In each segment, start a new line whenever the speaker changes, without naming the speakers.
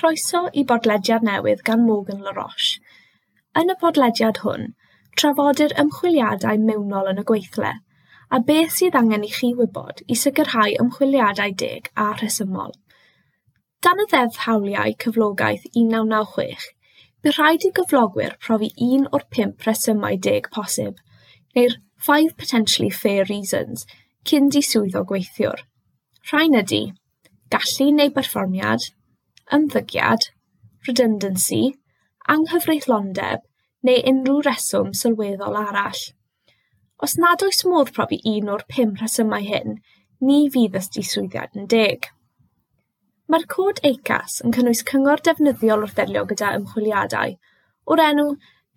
Croeso i bodlediad newydd gan Morgan LaRoche. Yn y podlediad hwn, trafodir ymchwiliadau mewnol yn y gweithle, a beth sydd angen i chi wybod i sicrhau ymchwiliadau deg a rhesymol. Dan y Ddeddf Hawliau Cyflogaeth 1996, bydd rhaid i gyflogwyr profi un o'r pump rhesymau deg posib, neu'r five potentially fair reasons, cyn diswyddo gweithiwr. Rhain ydy gallu neu berfformiad, ymddygiad, redundancy, anghyfreithlondeb neu unrhyw reswm sylweddol arall. Os nad oes modd profi un o'r pum rhesymau hyn, ni fydd y diswyddiad yn deg. Mae'r cod ACAS yn cynnwys cyngor defnyddiol wrth ddelio gyda ymchwiliadau, o'r enw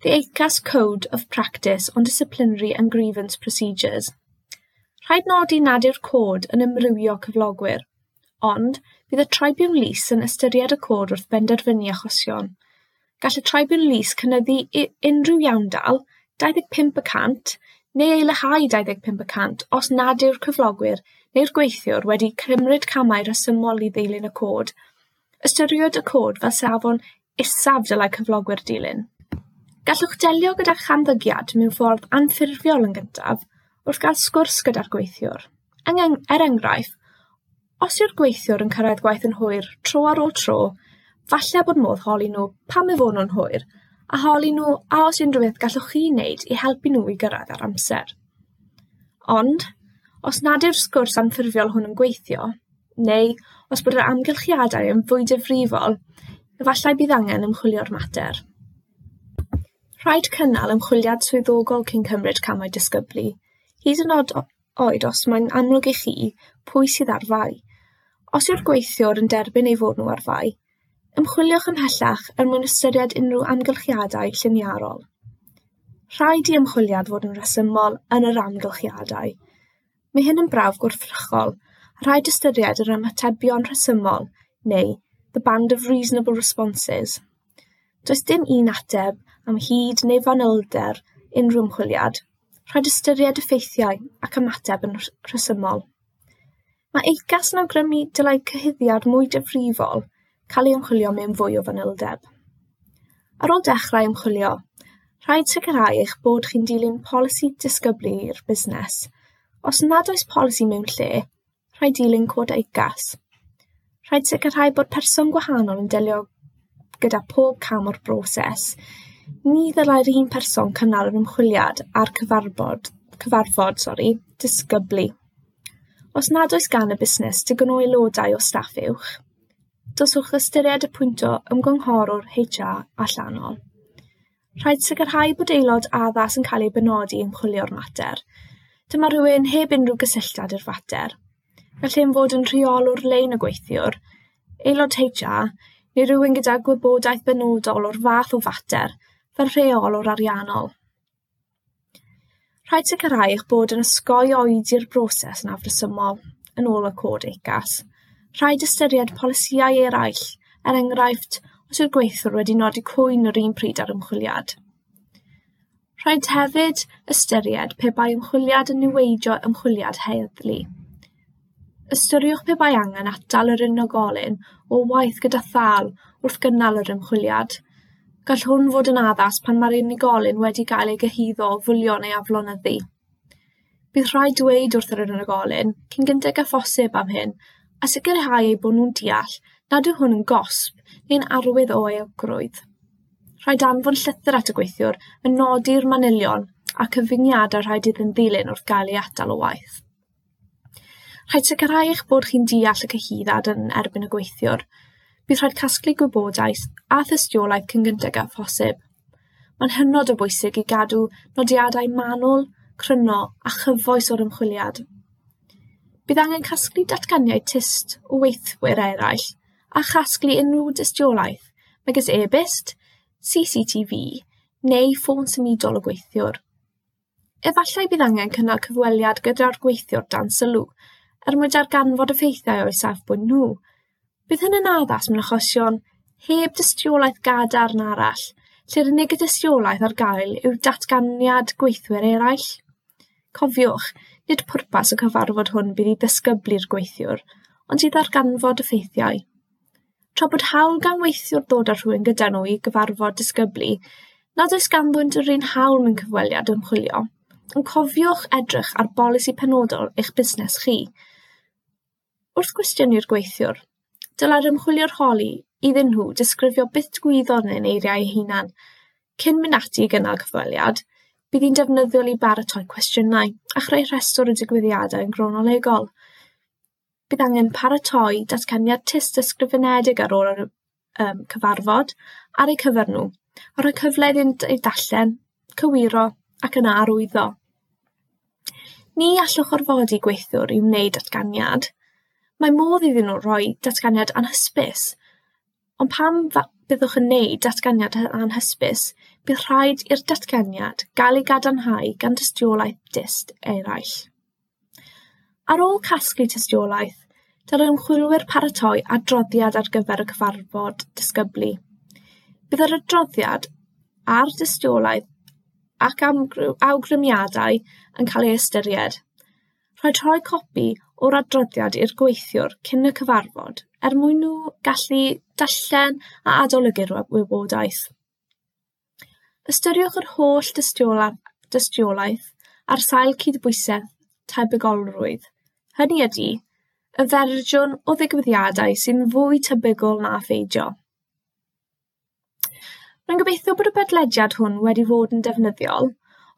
The ACAS Code of Practice on Disciplinary and Grievance Procedures. Rhaid nodi nad yw'r cod yn amrywio cyflogwyr, ond bydd y Tribiwnlys yn ystyried y cod wrth benderfynu achosion. Gall y Tribiwnlys cynyddu unrhyw iawndal 25% neu ei leihau 25% os nad yw'r cyflogwyr neu'r gweithiwr wedi cymryd camau rhesymol i ddilyn y cod. Ystyriwyd y cod fel safon isaf dylai cyflogwyr dilyn. Gallwch delio gyda chamddygiad mewn ffordd anffurfiol yn gyntaf wrth gael sgwrs gyda'r gweithiwr. Er enghraifft, os yw'r gweithiwr yn cyrraedd gwaith yn hwyr tro ar ôl tro, falle bod modd holi nhw pam eu fod nhw'n hwyr, a holi nhw a oes unrhyw beth gallwch chi wneud i helpu nhw i gyrraedd ar amser. Ond, os nad yw'r sgwrs anffurfiol hwn yn gweithio, neu os bod yr amgylchiadau yn fwy difrifol, efallai bydd angen ymchwilio'r mater. Rhaid cynnal ymchwiliad swyddogol cyn cymryd camau disgyblu, hyd yn oed os mae'n amlwg i chi pwy sydd ar fai. Os yw'r gweithiwr yn derbyn ei fod nhw ar fai, ymchwiliwch ymhellach er mwyn ystyried unrhyw amgylchiadau lliniarol. Rhaid i ymchwiliad fod yn rhesymol yn yr amgylchiadau. Mae hyn yn brawf gwrthrychol, a rhaid ystyried yr ymatebion rhesymol, neu the band of reasonable responses. Does dim un ateb am hyd neu fanylder unrhyw ymchwiliad. Rhaid ystyried effeithiau ac ymateb yn rhesymol. Mae ACAS yn awgrymu dylai cyhuddiad mwy difrifol cael ei ymchwilio mewn fwy o fanyldeb. Ar ôl dechrau ymchwilio, rhaid sicrhau eich bod chi'n dilyn polisi disgyblu i'r busnes. Os nad oes polisi mewn lle, rhaid dilyn cod ACAS. Rhaid sicrhau bod person gwahanol yn delio gyda pob cam o'r broses. Ni ddylai'r un person cynnal yr ymchwiliad a'r cyfarfod, cyfarfod sori, disgyblu. Os nad oes gan y busnes digon o aelodau o staff uwch, dylswch ystyried y pwynto ymgynghorwr HR allanol. Rhaid sicrhau bod aelod addas yn cael ei benodi i ymchwilio'r mater. Dyma rhywun heb unrhyw gysylltiad i'r fater. Gall hyn fod yn rheolwr lein y gweithiwr, aelod HR, neu rhywun gyda gwybodaeth benodol o'r fath o fater, fel rheolwr ariannol. Rhaid sicrhau eich bod yn osgoi oedi'r broses yn afresymol, yn ôl y cod ACAS. Rhaid ystyried polisïau eraill, er enghraifft, os yw'r gweithiwr wedi nodi cwyn yr un pryd â'r ymchwiliad. Rhaid hefyd ystyried pe bai ymchwiliad yn niweidio ymchwiliad heddlu. Ystyriwch pe bai angen atal yr unigolyn o waith gyda thâl wrth gynnal yr ymchwiliad. Gall hwn fod yn addas pan mae'r unigolyn wedi cael ei gyhuddo o fwlio neu aflonyddu. Bydd rhaid dweud wrth yr unigolyn cyn gynted â phosib am hyn a sicrhau eu bod nhw'n deall nad yw hwn yn gosb neu'n arwydd o euogrwydd. Rhaid anfon llythyr at y gweithiwr yn nodi'r manylion a cyfyngiadau rhaid iddyn ddilyn wrth gael ei atal o waith. Rhaid sicrhau eich bod chi'n deall y cyhuddiad yn erbyn y gweithiwr. Bydd rhaid casglu gwybodaeth a thystiolaeth cyn gynted â phosib. Mae'n hynod o bwysig i gadw nodiadau manwl, cryno a chyfoes o'r ymchwiliad. Bydd angen casglu datganiad tyst o weithwyr eraill a chasglu unrhyw dystiolaeth, megis e-byst, CCTV neu ffôn symudol y gweithiwr. Efallai bydd angen cynnal cyfweliad gyda'r gweithiwr dan sylw er mwyn darganfod effeithiau o'u safbwynt nhw. Bydd hyn yn addas mewn achosion heb dystiolaeth gadarn arall, lle'r unig dystiolaeth ar gael yw datganiad gweithwyr eraill. Cofiwch, nid pwrpas y cyfarfod hwn bydd i ddisgyblu'r gweithiwr, ond i ddarganfod effeithiau. Tra bod hawl gan weithiwr ddod â rhywun gyda nhw i gyfarfod disgyblu, nad oes ganddynt yr un hawl mewn cyfweliad ymchwilio, ond cofiwch edrych ar bolisi penodol eich busnes chi. Wrth gwestiynu'r gweithiwr, dylai'r ymchwiliwr holi iddyn nhw disgrifio beth digwyddodd yn eiriau eu hunan. Cyn mynd ati i gynnal cyfweliad, bydd hi'n defnyddiol i baratoi cwestiynau a chreu rhestr o digwyddiadau yn gronolegol. Bydd angen paratoi datganiad tyst ysgrifenedig ar ôl yr cyfarfod ar eu cyfer nhw, a rhoi cyfle iddynt eu darllen, cywiro ac yna arwyddo. Ni allwch orfodi gweithiwr i wneud datganiad. Mae modd iddyn nhw roi datganiad anhysbys, ond pan byddwch yn wneud datganiad anhysbys, bydd rhaid i'r datganiad gael ei gadarnhau gan dystiolaeth dyst eraill. Ar ôl casglu tystiolaeth, dylai ymchwilwyr paratoi adroddiad ar gyfer y cyfarfod disgyblu. Bydd yr adroddiad a'r dystiolaeth ac awgrymiadau yn cael ei ystyried. Rhaid rhoi copi o'r adroddiad i'r gweithiwr cyn y cyfarfod er mwyn nhw gallu darllen a adolygu'r wybodaeth. Ystyriwch yr holl dystiolaeth ar sail cydbwysedd tebygolrwydd. Hynny ydy, y fersiwn o ddigwyddiadau sy'n fwy tebygol na pheidio. Rwy'n gobeithio bod y podlediad hwn wedi fod yn defnyddiol.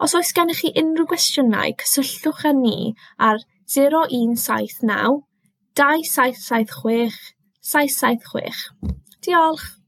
Os oes gennych chi unrhyw gwestiynau, cysylltwch â ni ar 0179 2776 776. Diolch!